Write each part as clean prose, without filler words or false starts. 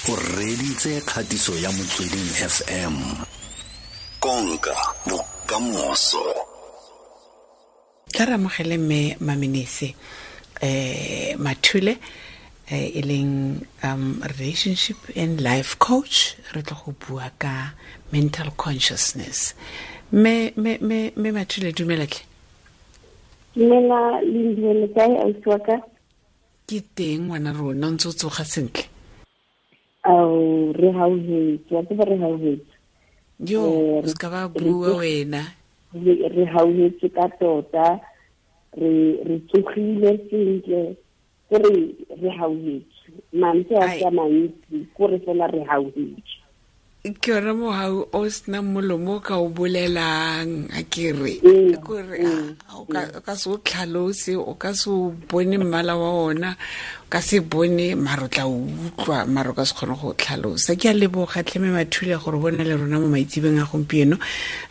O reditse kgatiso ya Motsweding FM. Konka bokamoso. Tla re amogele mme Mamenese Mathule, e leng relationship and life coach. Re tlo go bua ka mental consciousness. Mme Mathule, dumela tle. Dumela Lindiwe, le kae ausi wa ka? Ke teng ngwana rona, ntse o tsoga sentle? Ao, re hauhetse, wa tseba re hauhetse. Yo, o se ka ba bua wena. Re hauhetse ka tota, re tsogile sentle, ke re hauhetse. Mantswe a ka mantsi, ko re fela re hauhetse. Ke yona mohau o senang molomo o ka o bolelang, a ke re. Kore o ka se o tlhalose, o ka se o bone mmala wa ona, o ka se bone maro tla o utlwa, maro ka se kgone go tlhalosa. Ke a leboga tlhe mme Mathule gore bona le rona mo maitsebeng a gompieno.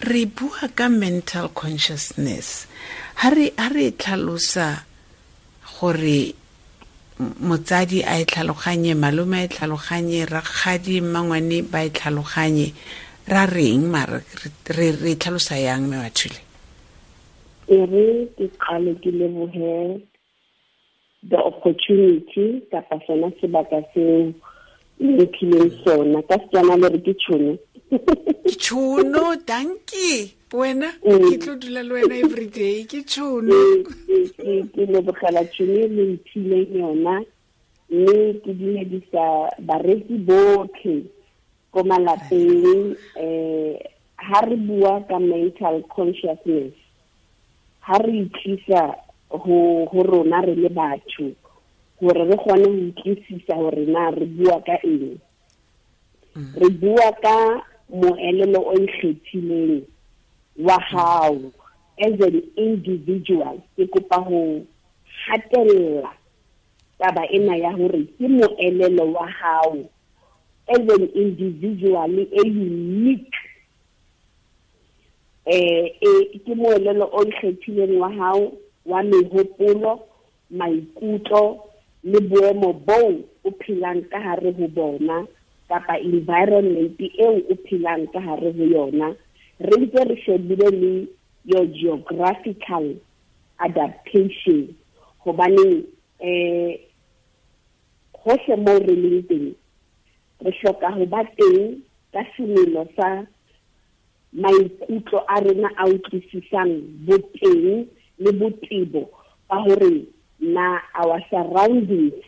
Re bua ka mental consciousness. Ha re tlhalosa gore motsadi a e tlhaloganye, malome a e tlhaloganye, rakgadi, mmangwane ba e tlhaloganye, ra reng mara re tlhalosa yang mme Mathule? E re ke qale ke lebohe the opportunity kapa sona sebaka seo le mphileng sona. Ka Setswana le re ke tšhono. Ke tšhono, dankie. Wena ke tlo dula le wena every day, ke tšhono. Ke lebogela tšhono e le mphileng yona, mme ke dumedisa bareki botlhe ko malapeng. Ha re bua ka mental consciousness, ha re itlisa ho rona re le batho, hore re kgone ho utlwisisa hore na re bua ka eng. Re bua ka moelelo o ikgethileng wa hao as an individual. Ke kopa ho hatella taba ena ya hore ke moelelo wa hao as an individual e unique. Ke moelelo o ikgethileng wa hao wa mehopolo, maikutlo le boemo boo o phelang ka hare ho bona, kapa environment eo o phelang ka hare ho yona. Re ntse re shebile le your geographical adaptation, hobane hohle moo re leng teng re hloka ho ba teng ka semelo sa maikutlo a rona a utlwisisang boteng le botebo ba hore na our surroundings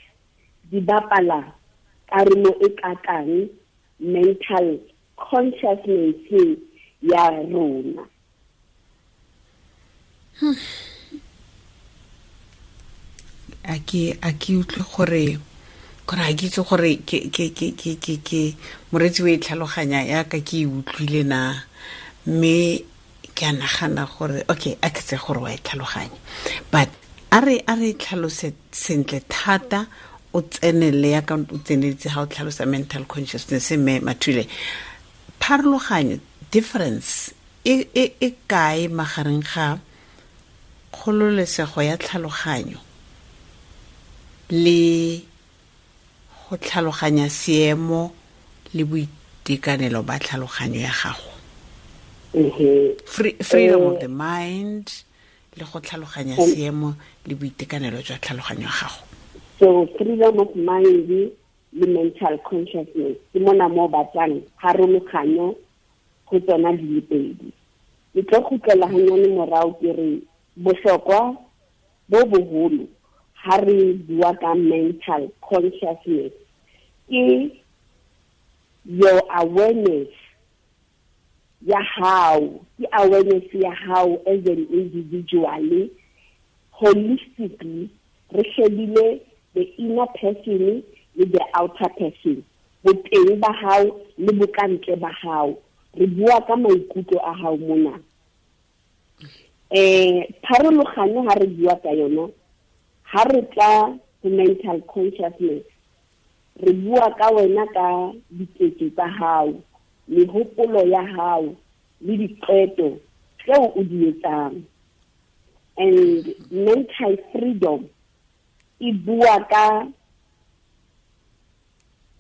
di bapala karolo e kakang mental consciousness ya rona. A ke utlwe gore a ke itse gore ke moretsi o e tlhaloganya yaka ke e utlwile na, mme ke a nagana gore okay, a ke tse gore wa e tlhaloganya, but a re tlhalose sentle thata, o tsenele yaka o tseneletse ha o tlhalosa mental consciousness. Mme Mathule, pharologanyo, difference e kae magareng ga kgololesego ya tlhaloganyo le go tlhaloganya seemo le boitekanelo ba tlhaloganyo ya gago? Freedom of the mind le go tlhaloganya seemo le boitekanelo jwa tlhaloganyo ya gago. So freedom of mind le mental consciousness ke mona mo batlang pharologanyo go tsona di le pedi. Ke tlo kgutlela hanyane morao ke re bohlokwa bo boholo ha re bua ka mental consciousness ke your awareness ya hao, ke awareness ya hao as an individual, holistically re shebile the inner person le the outer person, boteng ba hao le bokantle ba hao. Re bua ka maikutlo a hao mona. Pharologanyo ha re bua ka yona, ha re tla ho mental consciousness, re bua ka wena ka diketso tsa hao, mehopolo ya hao le diqeto tseo o di etsang. And mental freedom e bua ka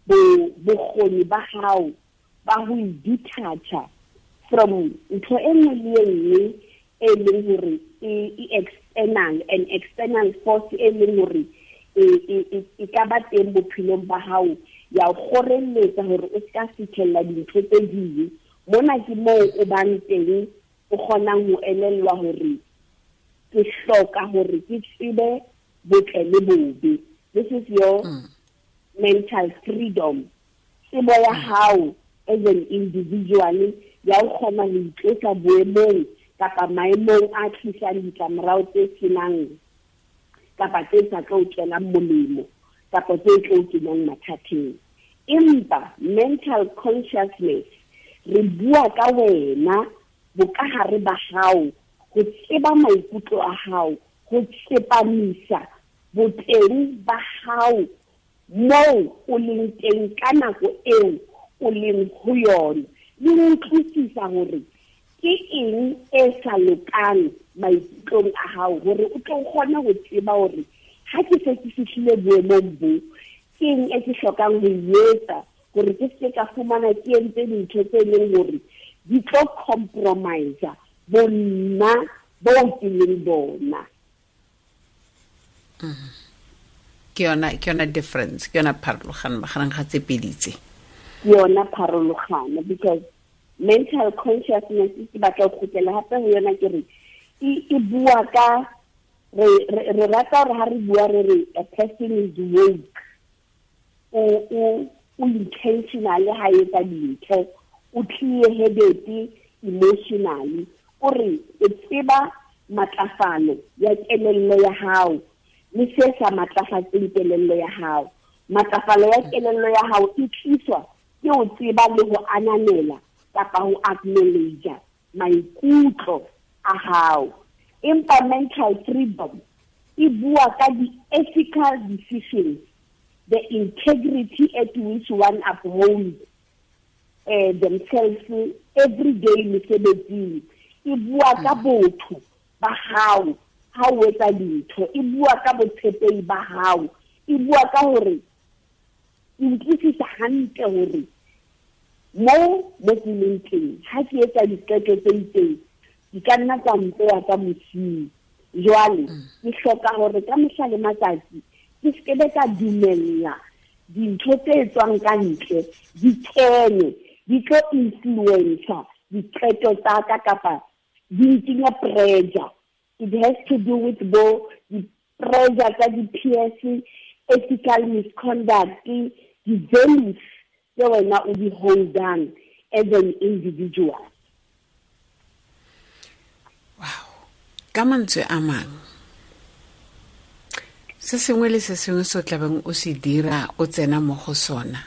Bokgoni ba hao ba ho detacha from ntho e nngwe le e nngwe e leng hore e external, an external force e leng hore e ka ba teng bophelong ba hao ya o kgorelletsa hore o ska fitlhella dintho tse ding. Mona ke moo o bang teng o kgonang ho elellwa hore ke hloka hore ke tsebe botle le bobe. This is your mental freedom. Tsebo ya hao as an individual ya o kgona ho itlosa boemong kapa maemong a tlisang ditlamorao tse senang kapa tse sa tlo tswelang molemo kapa tse tlo kenyang mathateng. Empa mental consciousness re bua ka wena bokahare ba hao, ho tseba maikutlo a hao, ho tsepamisa boteng ba hao moo o leng teng ka nako eo o leng ho yona, le ho utlwisisa hore ke eng e sa lokang maikutlong a hao, hore o tlo kgone ho tseba hore ha ke se ke fihlile boemong bo, ke eng e ke hlokang ho e etsa hore ke se ka fumana ke entse dintho tse leng hore di tlo compromise bonna bo ke leng bona. Ke yona difference, ke yona pharologano magareng ga tse pedi tse. Ke yona pharologano, because mental consciousness ke batla go kgutlela hape ho yona, ke re e bua ka re rata hore ha re bua re re a person is woke, o intentionally ha etsa dintho, o clear-headed emotionally, o re o tseba matlafalo ya kelello ya hao le se sa matlafatseng kelello ya hao. Matlafalo ya kelello ya hao e tliswa ke o tseba le ho ananela kapa ho acknowledge maikutlo a hao. Empa mental freedom e bua ka di-ethical decisions, the integrity at which one upholds themselves every day mesebetsing. E bua ka botho ba hao ha o etsa dintho, e bua ka botshepehi ba hao, e bua ka hore ke utlwisisa hantle hore mo ke leng teng ha ke etsa diqeto tse itseng di ka nna tsa mpeya ka mosing. Jwale ke hloka hore ka mehla le matsatsi ke se ke ka dumella dintho tse tswang ka ntle di kene di tlo influencer diqeto tsa ka kapa di ntsenya pressure. It has to do with bo di-pressure tsa di-peers, ethical misconduct, di-values tse wena o di holdang as an individual. Wow. Ka mantswe a mang, se sengwe le se sengwe se o tlabeng o se dira o tsena mo go sona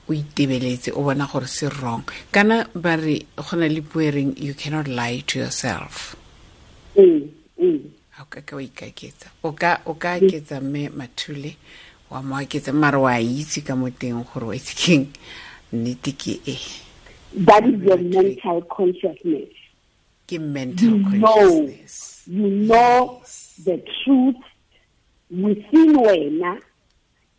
o itebeletse o bona gore se wrong. Kana ba re go na le puo e reng you cannot lie to yourself. Ha o ka wa ikaketsa, o ka aketsa mme Mathule wa mo aketsa, mare wa itse ka mo teng gore wa itse keng nnete ke e. That is your mental consciousness. Ke mental consciousness. You know the truth within wena,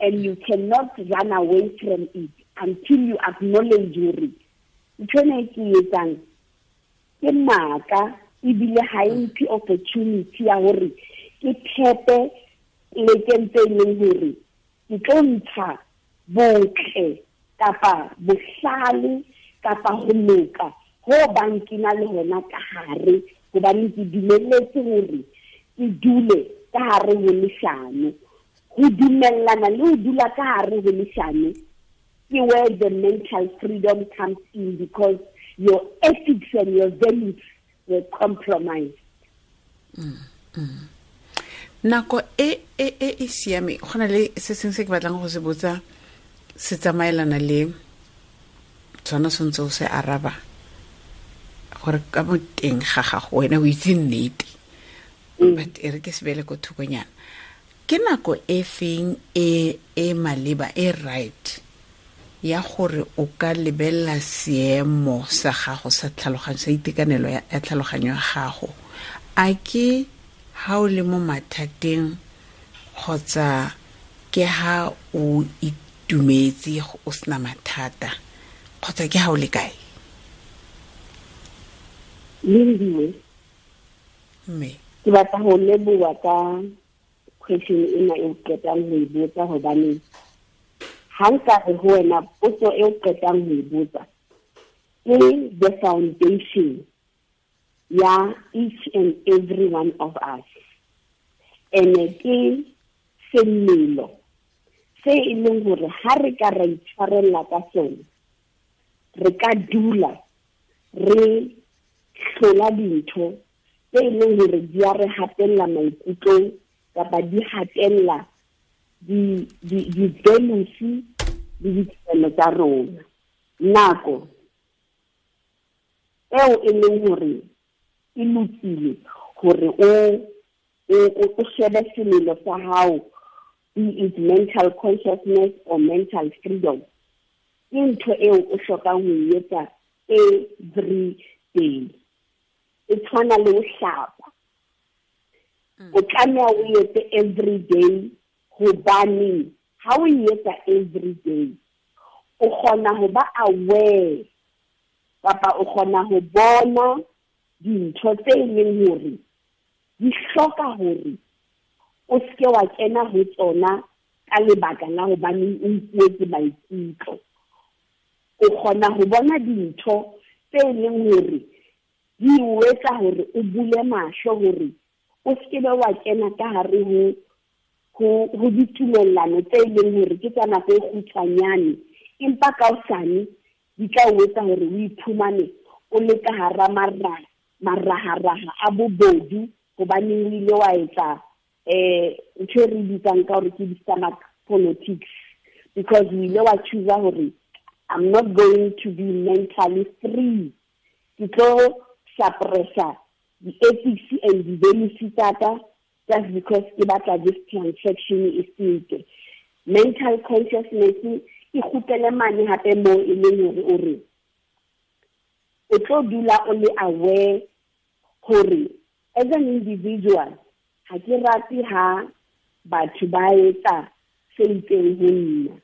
and you cannot run away from it until you acknowledge hore ntho ena e ke etsang ke maaka, ebile ha e mphe opportunity ya hore ke thepe plekeng tse leng hore ke tlo ntsha botle kapa bohlale kapa ho loka ho bang ke na le hona ka hare, hobane ke dumelletse hore ke dule ka hare ho leshano. Ho dumellana le ho dula ka hare ho leshano ke where the mental freedom comes in, because your ethics and your values were compromised. Nako e e siame, go na le se sengwe se ke batlang go se botsa se tsamaelana le tsona sentse o se araba gore ka mo teng ga gago wena o itse nnete, but e re ke se beele ko thokonyana. Ke nako e feng e maleba e right ya gore o ka lebella seemo sa gago sa tlhaloganyo, sa itekanelo ya tlhaloganyo ya gago? A ke ha o le mo mathateng kgotsa ke ha o itumetse, o sena mathata, kgotsa ke ha o le kae? Lindiwe, mme ke batla ho leboha ka question ena e o qetang ho e botsa, hobane ha nka re ho wena potso e o qetang ho e botsa ke the foundation ya each and every one of us, ene ke semelo se e leng hore ha re ka ra itshwarella ka sona, re ka dula re hlola dintho tse e leng hore di a re hatella maikutlong kapa di hatella di-values le ditumelo tsa rona. Nako eo e leng hore e lokile hore o shebe semelo sa hao, be it mental consciousness or mental freedom, ke ntho eo o hlokang ho e etsa every day. E tshwana le ho hlapa, o tlameha o etse every day, hobane ha o e etsa every day o kgona ho ba aware kapa o kgona ho bona dintho tse e leng hore di hloka hore o seke wa kena ho tsona ka lebaka la hobane o nkuetse maikutlo. O kgona ho bona dintho tse e leng hore di o etsa hore o bule mahlo hore o seke be wa kena ka hare ho ditumellano tse e leng hore ke tsa nako e kgutshwanyane, empa ka hosane di tla o etsa hore o iphumane o le ka hara maraharaha a bobodu, hobaneng o ile wa etsa ntho e re bitsang ka hore ke di-stomach politics, because o ile wa choose hore I'm not going to be mentally free, ke tlo suppressa di-ethics and di-values tsa ka just because ke batla this transaction e fete. Mental consciousness e kgutlele mane hape moo e leng hore o re o tlo dula o le aware hore as an individual ha ke rate ha batho ba etsa se itseng ho nna.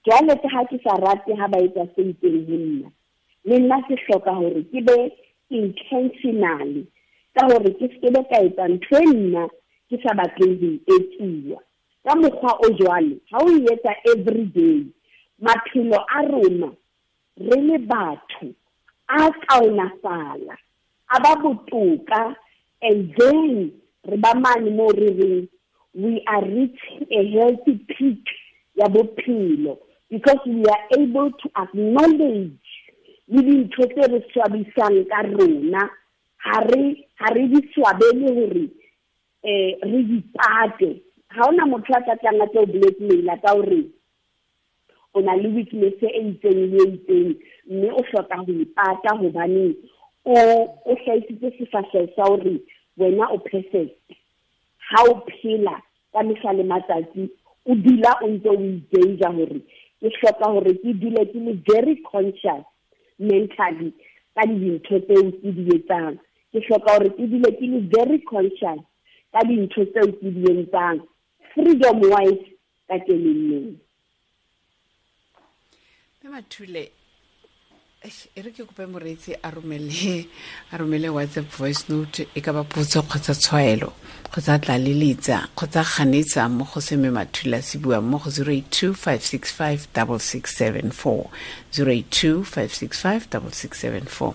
Jwale ke ha ke sa rate ha ba etsa se itseng ho nna, le nna ke hloka hore ke be intentionally ka hore ke se be ka etsa ntho e nna ke sa batleng ho e etsiwa. Ka mokgwa o jwalo, ha o e etsa every day, maphelo a rona re le batho a kaonafala, a ba botoka, and then re ba mane mo re reng we are reaching a healthy peak ya bophelo, because we are able to acknowledge le dintho tse re swabisang ka rona, ha re di swabele hore re di pate. Ha hona motho a tla tlang a tlo blackmail-a ka hore o na le weakness e itseng le e itseng, mme o hloka ho ipata hobane o hlahisitse sefahleho sa hore wena o perfect. Ha o phela ka mehla le matsatsi o dula o ntse o i-danger hore ke hloka hore ke dule ke le very conscious mentally ka dintho tseo ke di etsang, ke hloka hore ke dule ke le very conscious ka dintho tseo ke di entsang freedom wise ka kelellong. Mme Mathule, e re ke kope moreetsi a romele WhatsApp voice note, e ka ba potso kgotsa tshwaelo kgotsa tlaleletsa kgotsa ganetsa mo go se Mme Mathule a se buang mo go 082 565 6674, 082 565 6674.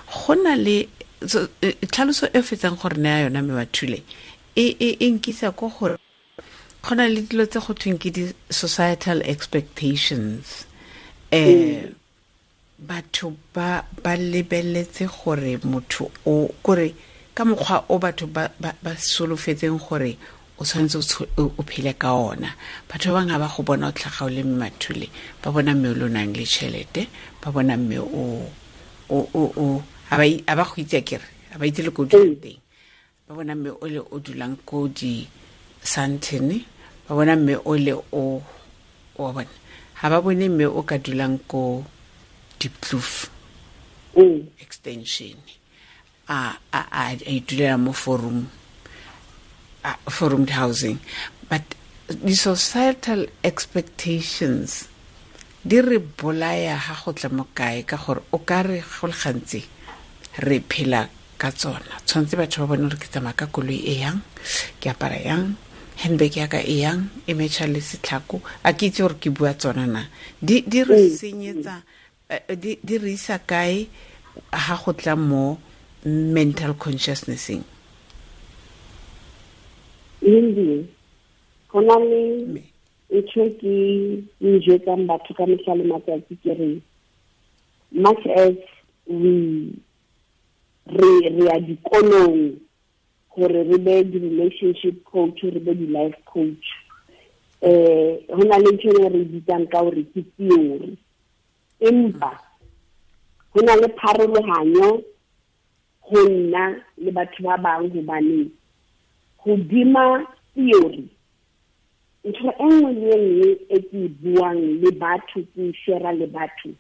Go na le tlhaloso e fetsang gore naya yona Mme Mathule e nkisa ko gore go na le dilo tse go thweng ke di-societal expectations. Batho ba lebeletse gore motho o kore ka mokgwa o batho ba solofetseng gore o tshwanetse o phele ka ona. Batho ba bangwe ba go bona o tlhaga o le Mme Mathule, ba bona mme o le o nang le tšhelete, ba bona mme o a ba go itse akere, a ba itse le ko dulang teng, ba bona mme o le o dulang ko di Sandton, ba bona mme o le o wa bona, ha ba bone mme o ka dulang ko Diepkloof extension, a itulela mo forum housing. But The societal expectations di re bolaya ha go tla mo kae, ka gore o ka re go le gantsi re phela ka tsona. Tshwanetse batho ba bone gore ke tsamaya ka koloi e yang, ke apara yang, handbag ya ka e yang, e metšha le setlhako. A ke itse gore ke bua tsona na. Di re senyetsa, di re isa kae ha go tla mo mental consciousness-eng? Lindy, go na le ntho ke e jwetsang batho ka mehla le matsatsi, ke re much as we re ya dikolong gore re be di-relationship coach, re be di-life coach, ho na le ntho e re bitsang ka hore ke theory, empa ho na le pharolohanyo ho nna le batho ba bang, hobane hodima theory ntho e nngwe le e nngwe e ke e buang le batho, ke e share le batho,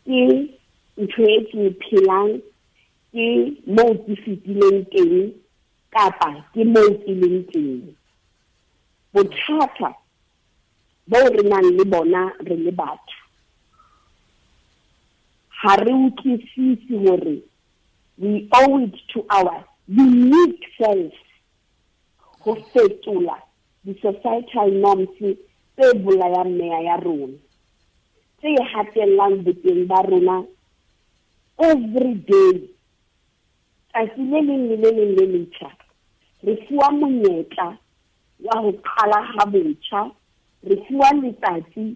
ke ntho e ke e phelang, ke moo ke fetileng teng kapa ke moo ke leng teng. Bothata bo re nang le bona re le batho, ha re utlwisise hore we owe it to our unique self ho fetola di-societal norms tse bolayang meya ya rona, tse hatellang boteng ba rona every day. Tsatsi le leng le le leng le letjha re fuwa monyetla wa ho qala ha botjha, re fuwa letsatsi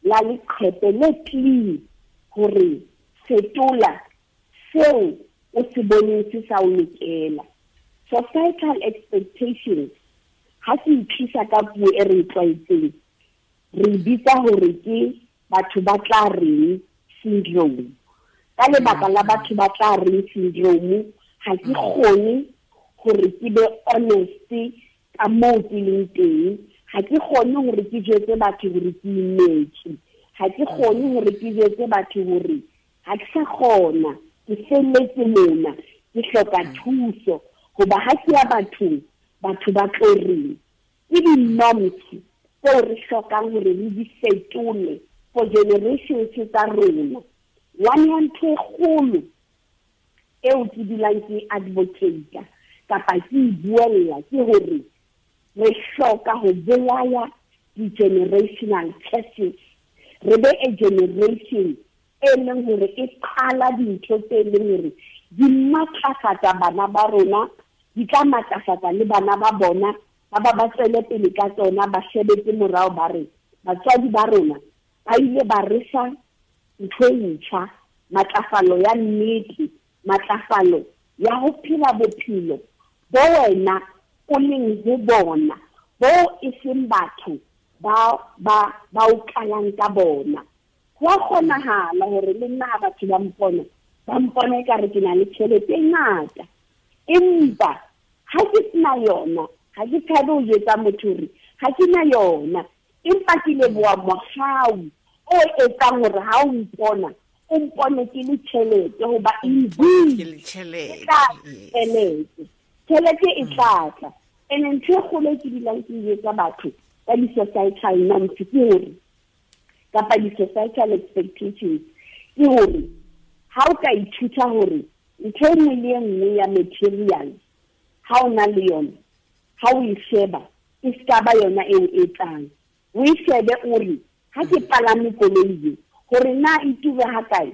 la leqhepe le clean hore fetola seo o se boneng se sa o lokela. Societal expectations ha se itlisa ka puo e re tlwaetseng, re bitsa hore ke batho ba tla reng syndrome. Ka lebaka la batho ba tla reng syndrome, ha ke kgone hore ke be honest ka moo ke leng teng, ha ke kgone hore ke jwetse batho hore ke imetswe, ha ke kgone hore ke jwetse batho hore ha ke sa kgona, ke felletse mona, ke hloka thuso, hoba ha ke ya bathong, batho ba tlo reng. Ke di-norms tseo re hlokang hore re di fetole for generations tsa rona. One ya ntho e kgolo eo ke dulang ke advocate kapa ke e buella ke hore re hloka ho bolaya di-generational curses. Re be a generation e leng hore e qala dintho tse leng hore di matlafatsa bana ba rona, di tla matlafatsa le bana ba bona, ba ba ba tswele pele ka tsona, ba shebetse morao ba re batswadi ba rona ba ile ba re fa ntho e ntjha, matlafalo ya nnete, matlafalo ya ho phela bophelo bo wena o leng ho bona, bo e seng batho ba ba ba o qalang ka bona. Ho a kgonahala hore le nna ha batho ba mpona ekare ke na le tjhelete e ngata, empa ha ke sena yona, ha ke tshabe ho jwetsa motho hore ha ke na yona, empa ke leboha mohau o etsang hore ha o mpona, o mpone ke le tjhelete, hoba ke le tjhelete, tjhelete e tla tla. Ene ntho e kgolo e ke dulang ke jwetsa batho ka di-societal norms ke hore, kapa di-societal expectations ke hore ha o ka ithuta hore ntho e nngwe le e nngwe ya material ha o na le yona, ha o e sheba e ska ba yona eo e tlang, o e shebe o re ha ke palame koloi e, hore na e ture ha kae,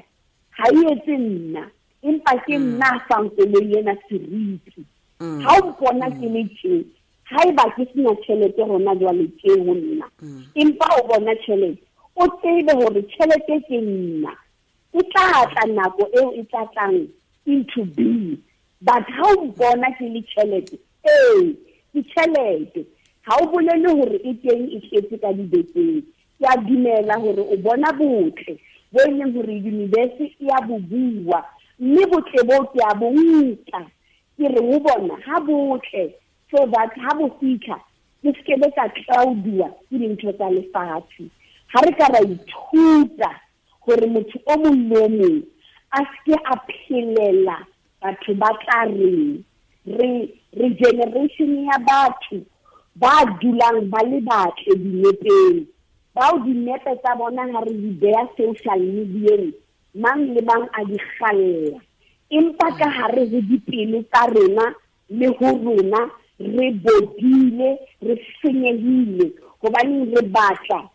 ha e etse nna, empa ke nna a fang koloi ena seriti. Ha o mpona ke le tje, haeba ke sena tjhelete hona jwale tje ho nna, empa o bona tjhelete, o tsebe hore tjhelete ke nna, e tla tla nako eo e tla tlang into being. But ha o mpona ke le tjhelete, ee, ke tjhelete, ha o bolele hore e teng e tletse ka dibekeng. Ke a dumela hore o bona botle bo e leng hore universe e a bo bua, mme botle bo ke a bo nka, ke re ho bona ha botle, so that ha bo fitlha ke se ke be ka tlaudiwa ke dintho tsa lefatshe. Ha re ka ra ithuta hore motho o mong le o mong a se ke a phelela batho ba tla reng, re generation ya batho Ba dulang ba le batle dinepeng, bao dinepe tsa bona ha re di beha social media, mang le mang a di kgalla. Empa ka hare ho dipelo tsa rona le ho rona re bodile, re senyehile, hobane re batla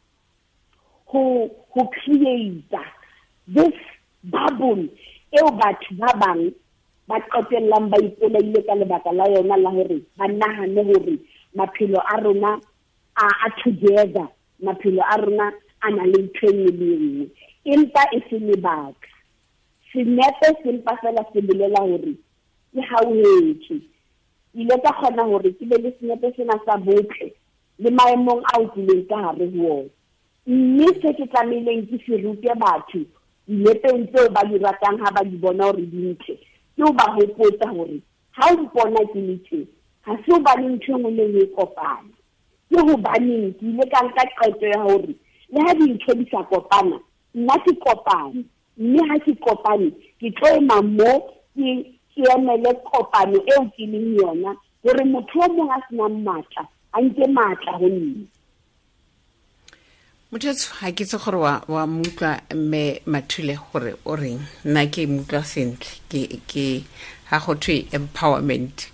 ho create this bubble eo batho ba bang ba qetellang ba ipolaile ka lebaka la yona la hore ba nahane hore maphelo a rona a together, maphelo a rona a na le ntho e nngwe le nngwe, empa e se lebaka. Senepe sempa fela se bolela hore ke hauhetswe. Ile ka kgona hore ke be le senepe sena sa botle le maemong ao ke leng ka hare ho ona. Mme se ke tlamehileng ke se rute batho dinepeng tseo ba di ratang ha ba di bona hore di ntle, ke ho ba hopotsa hore ha o mpona ke le tje, ha se hobane ntho e nngwe le nngwe e kopana. Ke hobaneng ke ile ka nka qeto ya hore le ha dintho di sa kopana, nna ke kopane, mme ha ke kopane ke tlo ema mo ke emele kopano eo ke leng yona, hore motho o mong a senang matla a nke matla ho nna. Motho ha ke tse gore wa mutlwa mme Mathule gore o reng, nna ke mutlwa sentle, ke ha go thwe empowerment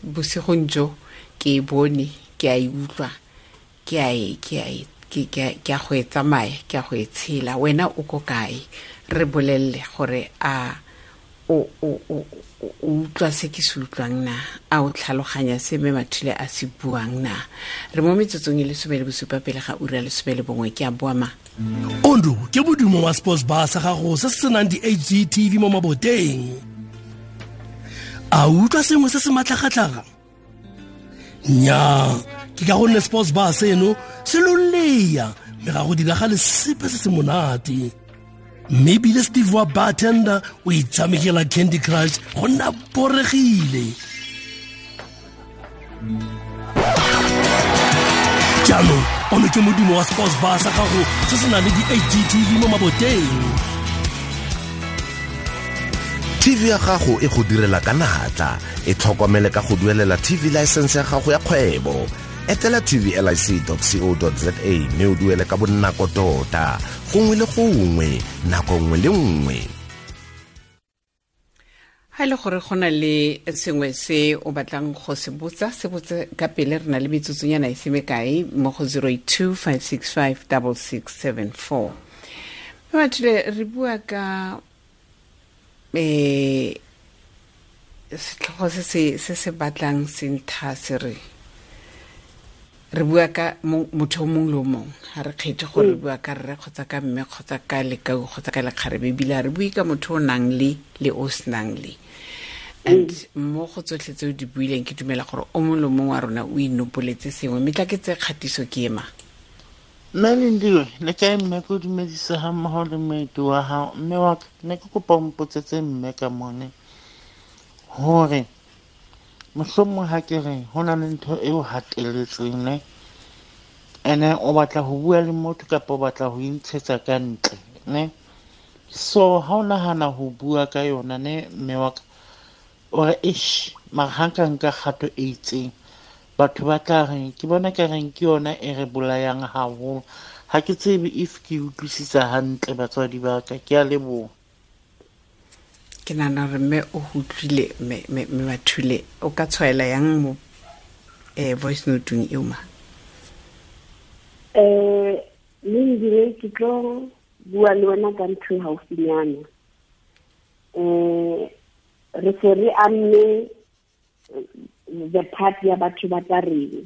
bosigong jo ke e bone, ke a e utlwa, ke a go e tsamaya, ke a go e tshela. Wena o ko kae? Re bolelle gore a o utlwa se ke se utlwang na, a o tlhaloganya se mme Mathule a se buang na. Re mo metsotsong e 17 pele ga ura 11, ke a boa ma. Ondo ke modumo wa sports bar sa gago se se senang di-HD TV mo maboteng. A utlwa sengwe se se matlhagatlhaga? Nnyaa, ke ka gonne sports bar seno se lolea mme ga go diragale sepe se se monate. Mme ebile Steve wa bartender o itshamekela Candy Crush go nna boregile. Jaanong ono ke modumo wa sports bar sa gago se se nang le di-HD TV mo maboteng. TV ya gago e go direla ka natla, e tlhokomele ka go duelela TV license ya gago ya kgwebo. Etela tvlic.co.za mme o duele ka bonako tota, gongwe le gongwe, nako nngwe le nngwe. Ha ile gore go na le sengwe se o batlang go se botsa, se botse ka pele, re na le metsotsonyana e se mekae mo go 082 565 6674. Mathule, re bua ka setlhogo se se batlang sentha se re bua ka motho o mongwe le o mongwe, ga re kgethe gore re bua ka rre kgotsa ka mme kgotsa ka lekau kgotsa ka lekgarebe, ebile re bue ka motho o nang le o senang le. And mo go tsotlhe tse o di buileng, ke dumela gore o mongwe le mongwe wa rona o inopoletse sengwe. Mme tla ke tse kgatiso ke ema. Mme Lindiwe, le kae mme? Ke o dumedisa ga mmogo le moeti wa gago. Mme wa ka, ne ke kopa o mpotsetse mme ka mone hore mohlomong ha ke re ho na le ntho eo hatelletseng ne, ene o batla ho bua le motho kapa o batla ho intshetsa ka ntle ne. So ha o nahana ho bua ka yona ne, mme wa ka, o re eish, mara ha nka nka kgato e itseng, batho ba tla reng? Ke bona ka reng ke yona e re bolayang haholo. Ha ke tsebe if ke utlwisisa hantle batswadi ba ka. Ke a leboha. Ke nahana hore mme o utlwile mme Mathule, o ka tshwaela yang mo voice note-ong eo ma? Lindiwe, ke tlo bua le wena ka ntho e haufinyana. Re se re amme the part ya batho ba tla reng.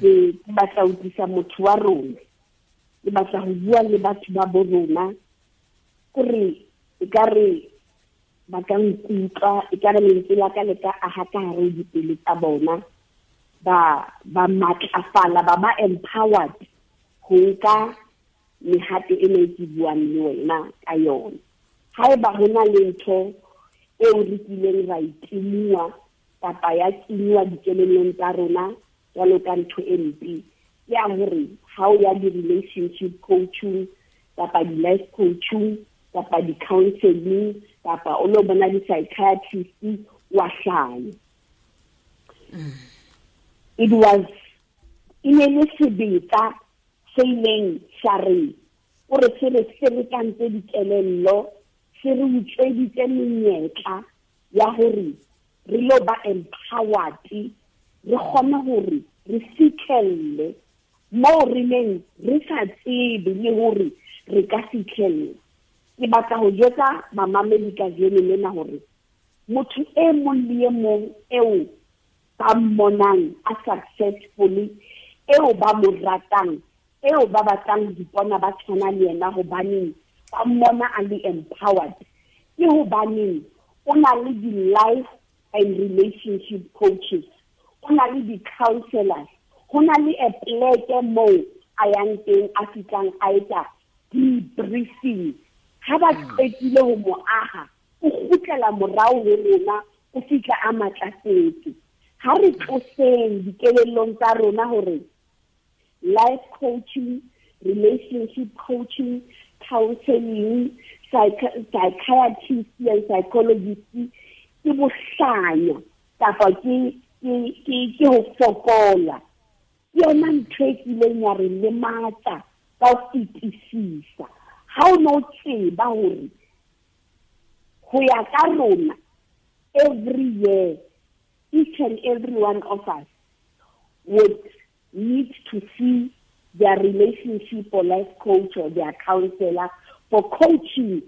Ke batla ho utlwisa motho wa rona, ke batla ho bua le batho ba bo rona, kore e ka re ba ka nkutlwa, e ka re lentswe la ka le ka aha ka hare ho dipelo tsa bona, ba matlafala, ba empowered ho nka mehato ena e ke buang le wena ka yona. Haeba ho na le ntho eo re kileng ra itimua kapa ya kenywa dikelellong tsa rona jwalo ka ntho e mpe, ke ya hore ha o ya di-relationship coaching kapa di-life coaching kapa di-counseling kapa o lo bona di-psychiatrist, wa hlanya. It was E ne le sebetsa se ileng sa re o re se re ferekantse dikelello, se re utsweditse menyetla ya hore re lo ba empowered, re kgone hore re fitlhelle moo re neng re sa tsebe le hore re ka fitlhella. Ke batla ho jwetsa bamamedi kajeno lena hore motho e mong le e mong eo ba mmonang a successfully, eo ba mo ratang, eo ba batlang ho ipona ba tshwana le yena hobaneng ba mmona a le empowered, ke hobaneng o na le di-life and relationship coaches, o na le di-counselors, ho na le a pleke moo a yang teng a fihlang a etsa debriefing. Ha ba qetile ho mo aha, o kgutlela morao ho rona, o fihla a matlafetse. Ha re tloseng dikelellong tsa rona hore life coaching, relationship coaching, counseling, psychiatrist and psychologist ke bohlanya kapa ke ho fokola. Ke yona ntho e kileng ya re lematsa ka ho fetisisa. Ha o no tseba hore ho ya ka rona every year, each and every one of us would need to see their relationship or life coach or their counselor for coaching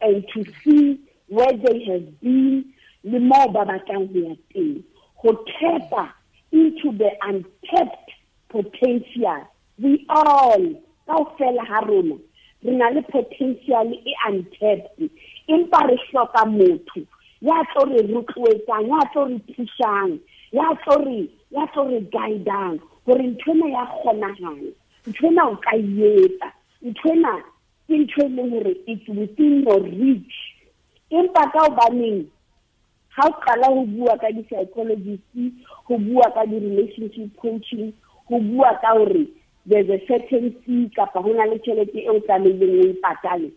and to see where they have been, le moo ba batlang ho ya teng, ho tap into the untapped potential. We all, kaofela ha rona, re na le potential e untapped, empa re hloka motho ya tlo re rotloetsang, ya tlo re thusang, ya tlo re guidang hore nthwena ya kgonahala, nthwena o ka etsa, nthwena ke ntho e leng hore it's within your reach. Empa ka hobaneng ha o qala ho bua ka di-psychologist, ho bua ka di-relationship coaching, ho bua ka hore there's a certain fee kapa ho na le tjhelete eo tlamehileng o e patale,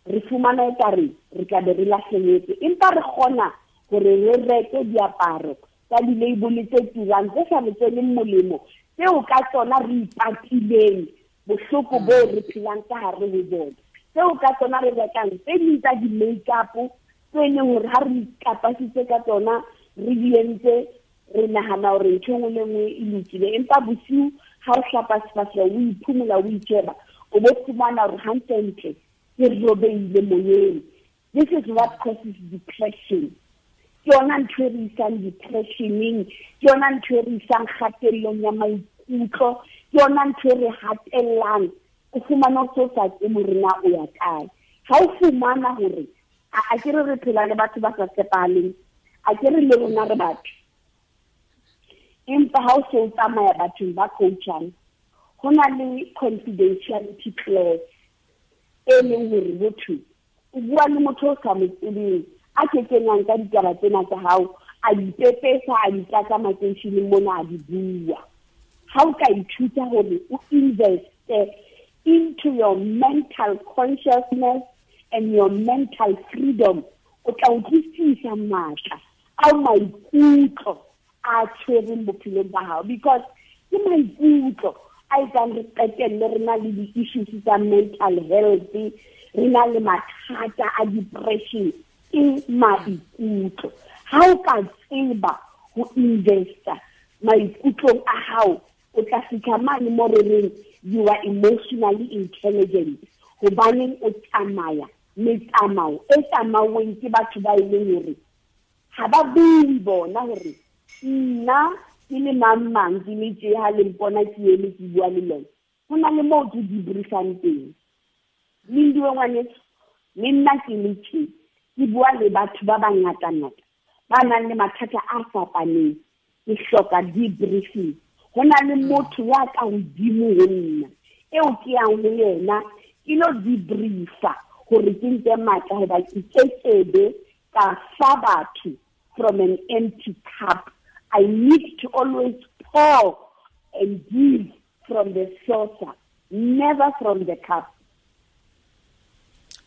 re fumana ekare re tla be re lahlehetswe. Empa re kgona hore re reke diaparo tsa di-label tse turang tse sa re tsweleng molemo, tseo ka tsona re ipatileng bohloko bo re phelang ka hare ho bona, tseo ka tsona re rekang tse ding tsa di-makeup tse leng hore ha re ikapasitse ka tsona re di entse, re nahana hore ntho e nngwe le nngwe e lokile. Empa bosiu ha o hlapa sefahleho, o iphumola, o itjheba, o bo fumana hore hantlentle ke robeile moyeng. This is what causes depression. Ke yona ntho e re isang depressioneng, ke yona ntho e re isang kgatellong ya maikutlo, ke yona ntho e re hatellang. O fumana o so sa tsebe hore na o ya kae. Ha o fumana hore a ke re phela le batho ba sa tshepahaleng, a ke re le rona re batho, empa ha o se o tsamaya bathong ba coachang, ho na le confidentiality clause e leng hore motho o bua le motho o sa mo tsebeng, a ke kenyang ka ditaba tsena tsa hao, a di pepesa, a di tlatsa makeisheneng mona, a di bua. Ha o ka ithuta hore o investe into your mental consciousness and your mental freedom, o tla utlwisisa matla ao maikutlo a tshwereng bophelong ba hao, because ke maikutlo a etsang re qetelle re na le di-issues tsa mental health, re na le mathata a depression, ke maikutlo. Ha o ka tseba ho investa maikutlong a hao, o tla fihla mane mo re reng you are emotionally intelligent, hobaneng o tsamaya metsamao e tsamauweng ke batho ba e leng hore ha ba bue bona hore nna ke le mang mang ke le tje ha le mpona ke eme ke bua le lona. Ho na le moo ke debriefang teng. Lindiwe ngwaneso, le nna ke le tje ke bua le batho ba bangatangata ba nang le mathata a fapaneng, ke hloka debriefing. Ho na le motho ya ka hodimo ho nna eo ke yang ho yena ke lo debriefa hore ke nke matla, hoba ke kekebe ka fa batho from an empty cup. I need to always pour and give from the saucer, never from the cup.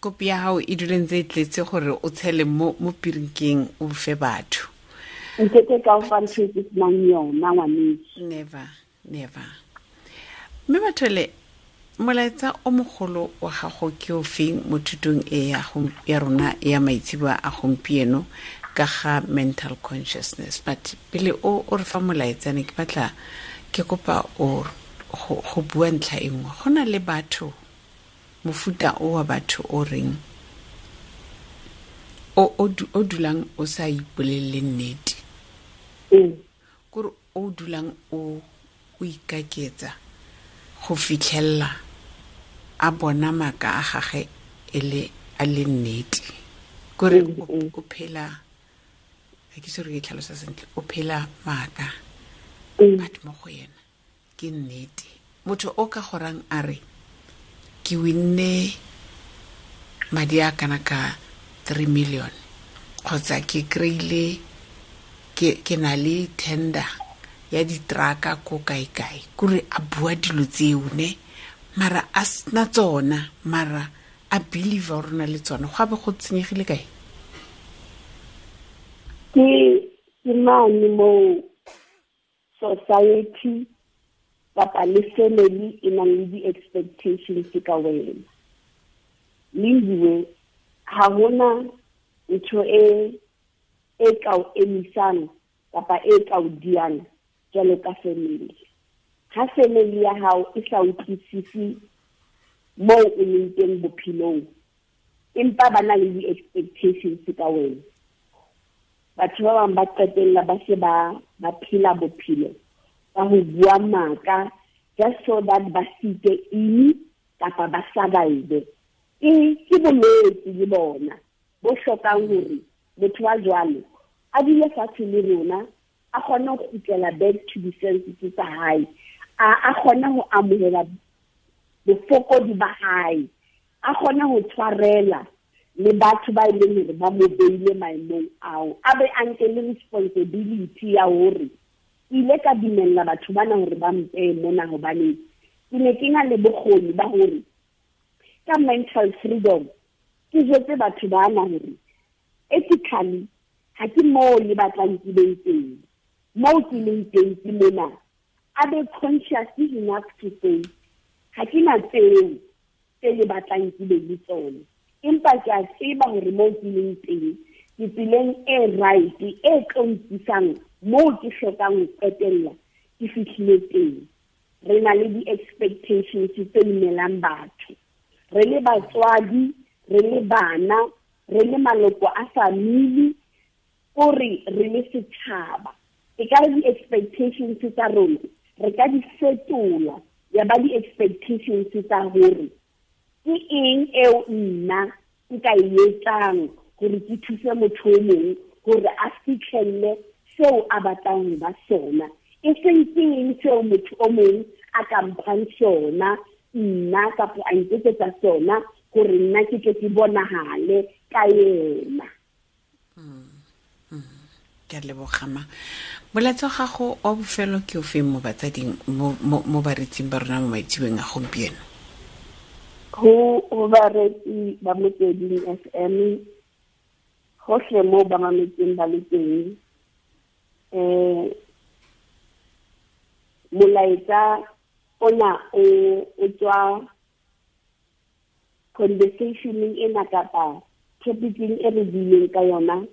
Kopi ya hao e dule ntse e tletse gore o tshele mo pirinkeng o fe batho. Nkeke ka o fa ntho e ke senang yona, ngwaneso. Never, never. Mme Mathole, molaetsa o mogolo wa gago ke o feng mo thutong e ya rona ya maitseboa a gompieno ka ga mental consciousness? But pele o re fa molaetsa, ne ke batla ke kopa o go bua ntlha e nngwe. Go na le batho, mofuta o wa batho o reng o dulang o sa ipolelele nnete, kore o dulang o ikaketsa go fitlhella a bona maaka a gage e a le nnete, kore o phela, ga ke se re ke tlhalosa sentle, o phela maaka but mo go yena ke nnete. Motho o ka gorang a re ke winne madi a kana ka 3 million kgotsa ke kry-ile ke na le tender ya ditraka ko kae-kae, kore a bua dilo tseo ne, mara a sena tsona, mara a believe gore na le tsona. Go abe go tsenyegile kae? Ke mane mo society kapa le family e nang le di-expectations ka wena. Lindiwe, ha hona ntho e ka o emisang kapa e ka o diang jwalo ka family. Ha family ya hao e sa utlwisisi moo o leng teng bophelong, empa ba na le di-expectations ka wena, batho ba bang ba qetella ba se ba phela bophelo ba ho bua maka just so that ba site ini kapa ba survive. Ke bolwetse le bona bo hlokang hore motho wa jwalo a dule fatshe le rona, a kgone ho kgutlela back to the senses tsa hae, a kgone ho amohela bofokodi ba hae, a kgone ho tshwarela le batho ba e leng hore ba mo beile maemong ao, a be a nke le responsibility ya hore ile ka dumella batho bana hore ba mpeye mona, hobane ke ne ke na le bokgoni ba hore ka mental freedom ke jwetse batho bana hore ethically ha ke moo le batlang ke beng teng, moo ke leng teng ke mona. A be conscious enough to say ha ke na tseo tse le batlang ke be le tsona, empa ke a tseba hore moo ke leng teng ke tseleng e right e tlo nkisang moo ke hlokang ho qetella ke fihlile teng. Re na le di-expectations tse imelang batho, re le batswadi, re le bana, re le maloko a family, kore re le setjhaba. E ka re di-expectations tsa rona re ka di fetola ya ba di-expectations tsa hore ke eng eo nna nka e etsang hore ke thuse motho o mong hore a fihlelle seo a batlang ho ba sona, e seng ke eng seo motho o mong a ka mphang sona nna kapa a nketsetsa sona hore nna ke tle ke bonahale ka yena. Ke a leboga ma. Molaetsa wa gago wa bofelo ke o feng mo batsading, mo baretsing ba rona mo maitseboeng a gompieno? Ho baretsi ba Motsweding FM hohle moo ba mametseng ba le teng, molaetsa ona o tswa conversationeng ena kapa topicing e re buileng ka yona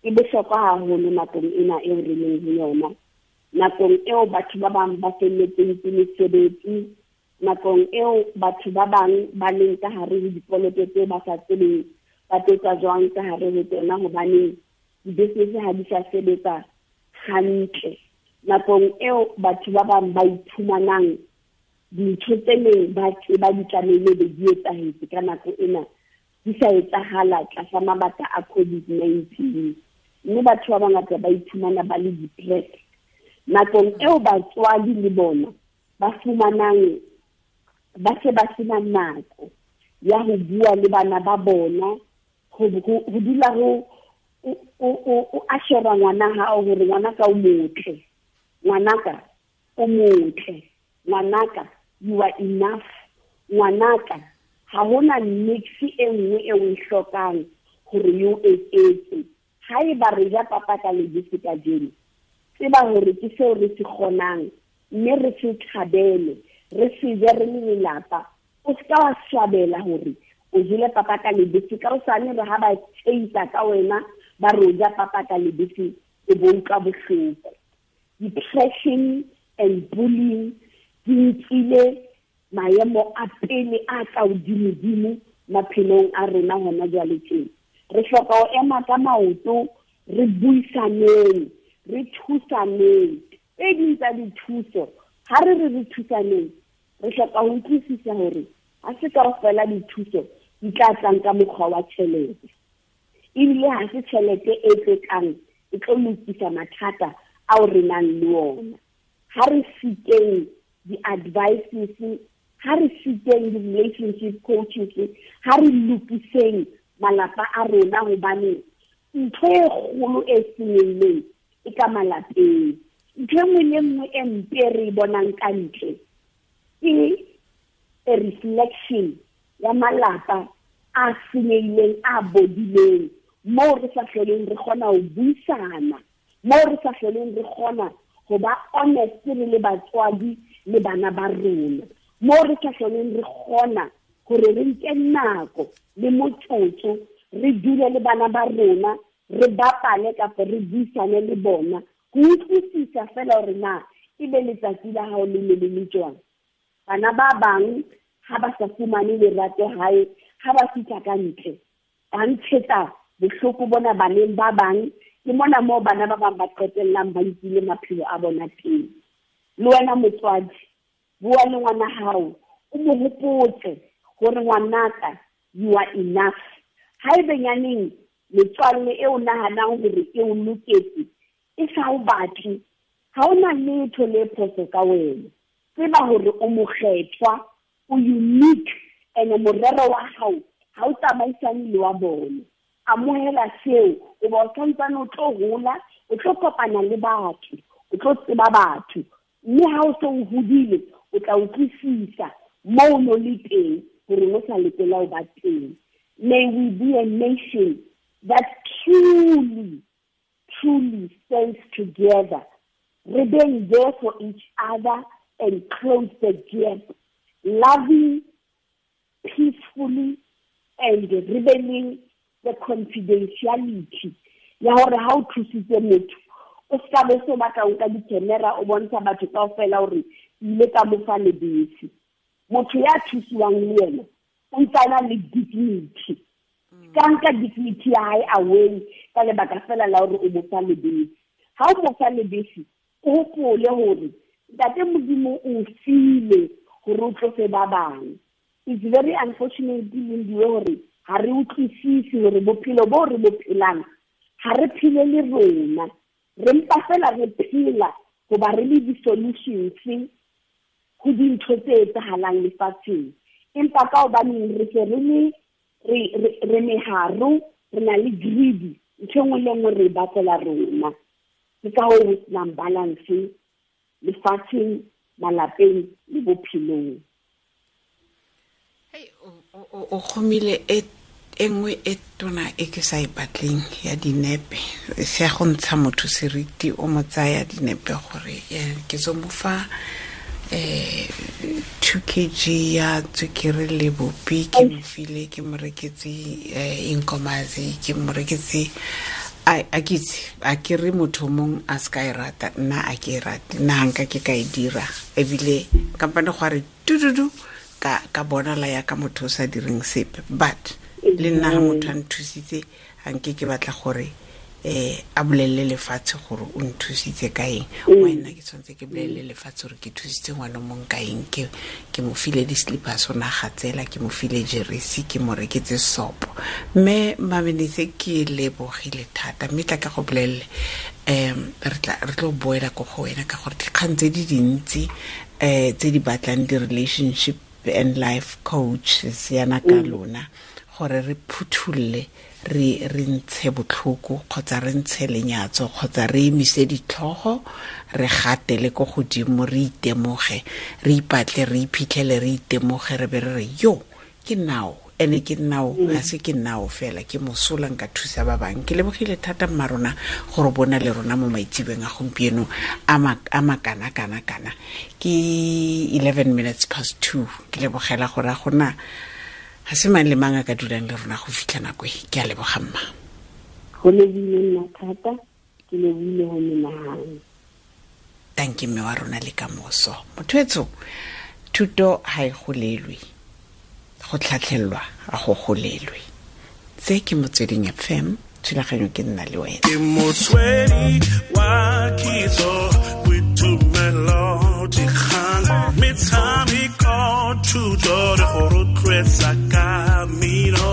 e bohlokwa haholo nakong ena eo re leng ho yona, nakong eo batho ba bang ba felletseng ke mesebetsi, nakong eo batho ba bang ba leng ka hare ho dikoloto tseo ba sa tsebeng ba tlo jwang ka hare ho tsona, hobane di-business ha di sa sebetsa hantle, nakong eo batho ba bang ba iphumanang dintho tse neng ba tseba di tlamehile be di etsahetse ka nako ena di sa etsahala tlasa mabaka a COVID-19, mme batho ba bangata ba iphumana ba le depressed. Nakong eo batswadi le bona ba fumanang ba se ba sena nako ya ho bua le bana ba bona, ho dula ho o ashera ngwana hao hore ngwanaka o motle, ngwanaka o motle, ngwanaka you are enough, ngwanaka ha hona nix e nngwe e o e hlokang hore yo eketse. Haeba re ja papa ka lebese kajeno, tseba hore ke seo re se kgonang mme re se thabele, re se je re le lelapa. O se ka wa swabela hore o jele papa ka lebese, ka hosane re ha ba tsheisa ka wena ba re o ja papa ka lebese, o bo utlwa bohloko. Depression and bullying di nkile maemo a pele a ka hodimodimo maphelong a rona hona jwale tjena. Re hloka ho ema ka maoto, re buisaneng, re thusaneng. Tse ding tsa dithuso, ha re re re thusaneng, re hloka ho utlwisisa hore ha se kaofela dithuso di tla tlang ka mokgwa wa tjhelete, ebile ha se tjhelete e tlo tlang e tlo lokisa mathata ao re nang le ona. Ha re sikeng di-advices, ha re sikeng di-relationship coaches, ha re lokiseng malapa a rona, hobane ntho e kgolo e senyehileng e ka malapeng. Ntho e nngwe le nngwe e mpe re e bonang ka ntle ke a reflection ya malapa a senyehileng, a bodileng, moo re sa hloleng re kgona ho buisana, moo re sa hloleng re kgona ho ba honest re le batswadi le bana ba rona, moo re sa hloleng re kgona hore re nke nako le motsotso re dule le bana ba rona, re bapale kapa re buisane le bona, ho utlwisisa fela hore na ebe letsatsi la hao le ne le le jwang. Bana ba bang ha ba sa fumane lerato hae, ha ba fihla ka ntle ba ntshetsa bohloko bona baneng ba bang. Ke mona moo bana ba bang ba qetellang ba nkile maphelo a bona teng. Le wena motswadi, bua le ngwana hao, o mo hopotse hore ngwanaka, you are enough. Haebe nyaneng metswalle e o nahanang hore e o loketse e sa o batle, ha o na letho le phoso ka wena. Tseba hore o mokgethwa, o unique, and morero wa hao ha o tsamaisane le wa bona. Amohela seo, o ba o santsane o tlo hola, o tlo kopana le batho, o tlo tseba batho, mme ha o se o hodile o tla utlwisisa moo o no le teng hore o sa lokela ho ba teng. May we be a nation that truly, truly stands together, re being there for each other and close the gap, loving peacefully and rebelling the confidentiality ya hore ha o thusitse motho o ska be so batla o nka di-camera o bontsha batho kaofela hore ile ka mo fa lebese. Motho ya thusiwang le yena o ntse a na le dignity, ka nka dignity ya hae away ka lebaka fela la hore o mo fa lebese. Ha o mo fa lebese, o hopole hore Ntate Modimo o file hore o tlose ba bang. It's very unfortunate Lindiwe hore ha re utlwisise hore bophelo bo re bo phelang ha re phele le rona, re mpa fela re phela hoba re le di-solutions ho dintho tse etsahalang lefatsheng. Empa ka hobaneng re se re le re meharo, re na le greedy, ntho e nngwe le nngwe re e batlela rona. Ke ka hoo ho senang balance lefatsheng, malapeng le bophelong. Hey, o kgomile e nngwe e tona e ke sa e batleng ya dinepe, se ya go ntsha motho seriti, o mo tsaya dinepe gore ke tso mo fa 2 kg ya tswekere le bopi, ke mo file, ke mo reketse inkomazi, ke mo reketse a ke itse, a ke re motho mong a se ka e rata, nna a ke e rate, nna ha nka ke ka e dira, ebile kampane go a re tududu ka bona la ya ka motho o sa direng sepe. But le nna ha motho a nthusitse, ha nke ke batla gore a bolelle lefatshe gore o nthusitse ka eng. Wena ke tshwanetse ke bolelle lefatshe gore ke thusitse ngwana mong ka eng, ke mo file di-slippers o na gatsela, ke mo file jeresi, ke mo reketse sopo. Mme Mamenese ke lebogile thata, mme tla ka go bolelle re tlo boela ko go wena ka gore dikgang tse di dintsi tse di batlang di-relationship and life coaches yana ka lona, gore re phuthulle, re ntshe botlhoko kgotsa re ntshe lenyatso kgotsa re emise ditlhogo, re gatele ko godimo, re itemoge, re ipatle, re iphitlhele, re itemoge, re be re re yo ke now Ene ke nnao ga se ke nnao fela, ke mosola nka thusa ba bangwe. Ke lebogile thata mma rona gore bona le rona mo maitsebeng a gompieno a makana-kana-kana. Ke 2:11, ke lebogela gore a gona ga se mang le mang a ka dulang le rona go fitlha nako e. Ke a leboga mma. Go lebile nna thata, ke lebile go menahane. Thank you mme wa rona le kamoso. Motho etsho, thuto ha e golelwe, go tlhatlhelwa a go golelwe. Tse ke Motsweding FM, thulaganyo ke nna le wena. Ke motswedi wa kitso, boitumelo, dikgang, metshameko, thuto le go rotloetsa ka mmino.